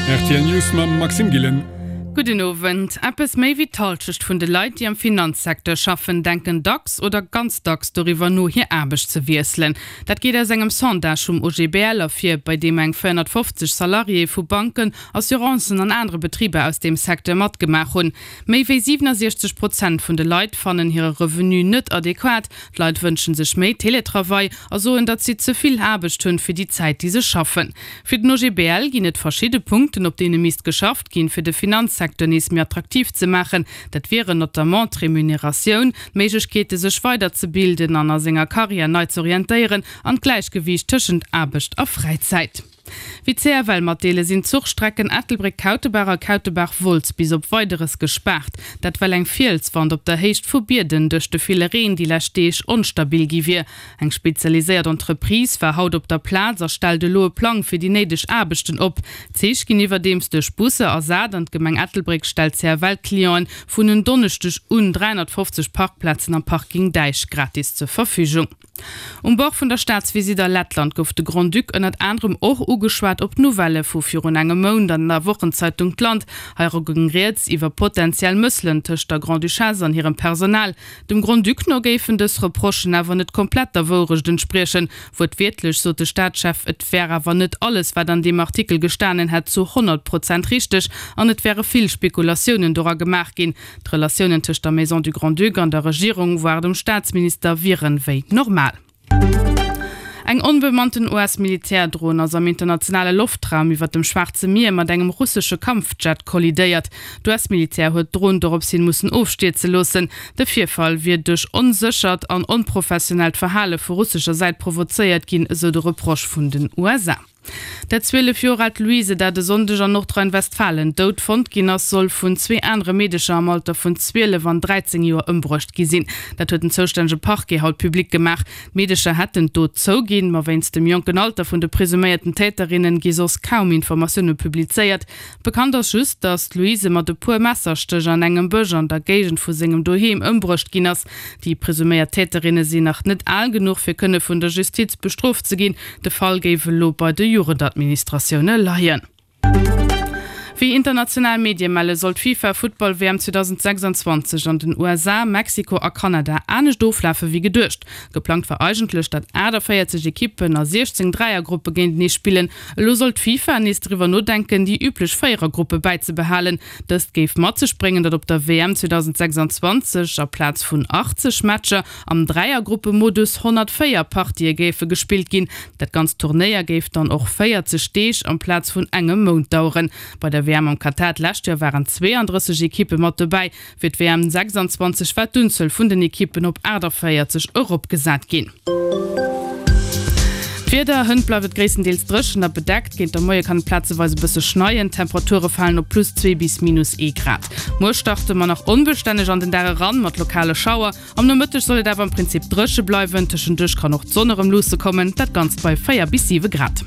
Rtl News mam Maxime Gillen. Gudden Owend. Eppes méi wéi d'Hallschecht vun de Leit, déi am Finanzsecteur schaffen, denken dacks oder ganz dacks doriwwer no, hir Aarbecht ze wiesselen. Dat geet aus engem Sondage vum OGBL ervir, bei deem eng 450 Salariéë vu Banken, Assurancen an anere Betriber aus deem Secteur matgemaach hunn. Méi wéi 67 Prozent vun de Leit fannen hire Revenu net adequat. D'Leit wënsche sech méi Teletravail a soen, datt si ze vill Aarbecht hunn fir déi Zäit, déi se schaffen. Fir den OGBL ginn et verschidde Punkten, op deene misst geschafft ginn, fir de Finanzsecteur nees méi attraktiv ze maachen. Dat wieren notamment d'Remuneratioun, d'Méiglechkeete sech weiderzebilden an a senger Karriär nei z'orientéieren an d'Gläichgewiicht tëschent Aarbecht a Fräizäit. Wéi d'CFL matdeelen, sinn d'Zuchstrecken Ettelbréck-Kautebaach a Kautebaach-Wolz bis op Weideres gespaart. Dat well eng Fielswand op der Héicht vu Bierden duerch de ville Reen déi lescht Deeg onstabil gi wier. Eng spezialiséiert Entreprise war haut op der Plaz a stellt elo e Plang fir déi néideg Aarbechten op. D'Zich ginn iwwerdeems duerch Busser ersat an d'Gemeng Ettelbréck stellt CFL-Clienten vun en Donneschdeg un 350 Parkplazen am Parking Däich gratis zur Verfügung. Um Bord vun der Staatsvisitt a Lettland gouf de Grand-Duc ënnert anerem och ugeschwat op d'Nouvellë vu virun engem Mount an der Wochenzeitung d'Land. Heira goung rieds iwwer potentiell Mësselen tëscht der Grand-Duchesse an hirem Personal. Dem Grand-Duc no géifen dës Reprochen awer net komplett der Wourecht entspriechen. Wuertwiertlech sot de Staatschef, et wär awer net alles, wat an deem Artikel gestanen hätt, zu 100 Prozent richteg an et wäre vill Spekulatiounen dora gemaach ginn. D'Relatiounen tëscht der Maison du Grand-Duc an der Regierung, voire dem Staatsminister, wieren wéi normal. Eng onbemannten US-Militärdron ass am internationale Loftraum iwwer dem Schwaarze Mier mat engem russesche Kampfjet kollidéiert. D'US-Militär huet d'Dron dorops hin mussen ofstierze loossen. De Virfall wier duerch onséchert an onprofessionellt Verhale vu russescher Säit provozéiert ginn, esou de Reproche vun den USA. Dat 12 Joer aalt Louise, dat e Sonndeg an Nordrhein-Westfalen dout fonnt ginn ass, soll vun zwee anere Meedecher am Alter vun 12 an 13 Joer ëmbruecht gi sinn. Dat huet den zoustännege Parquet haut public gemaach. D'Meedecher hätten d'Dot zouginn, ma wéinst dem jonken Alter vun de presuméierten Täterinnen gi soss kaum Informatioune publizéiert. Bekannt ass just, datt d'Louise mat e puer Messerstéch an engem Bësch an der Géigend vu sengem Doheem ëmbruecht ginn ass. Déi presuméiert Täterinne sinn nach net al genuch, fir kënne vun der Justiz bestrooft ze ginn. De Fall géif elo bei de Jugendadministratioune leien. Wéi international Medie melle soll d'FIFA-Futtball-WM 2026 an den USA, Mexiko a Kanada anescht oflafe wéi geduecht. Geplangt war eigentlech, datt 48 Ekippen a 16 Dräiergruppe géintenee spillen. Elo soll d'FIFA nees driwwer nodenken, déi üblech Véierergruppe bäizebehalen. Dëst géif mat sech bréngen, datt op der WM 2026 aplaz vun 80 Matcher Am Dräiergruppemodus 104 Partië géife gespillt ginn. Dat ganzt Turnéier géif dann och 40 Deeg amplaz vun engem Mount daueren. Bei der WM am Katar d'lescht Joer waren 32 Ekippe mat dobäi. Fir d'WM 26 war d'Unzuel vun den Ekippen op 48 eropgesat ginn. D'Wieder, Hënt bleift et gréisstendeels dréchen a bedeckt. Géint der Moie kann et plazeweis e bësse schneien. D'Temperature falen op plus 2 bis minus ee Grad. Muer starte mer nach onbestänneg an den Dag eran, mat lokale Schauer. Am Nomëtteg soll et awer am Prinzip dréche bleiwen, tëschenduerch kann och d'Sonn erëm luusse kommen, dat Ganzt bei 4 bis 7 Grad.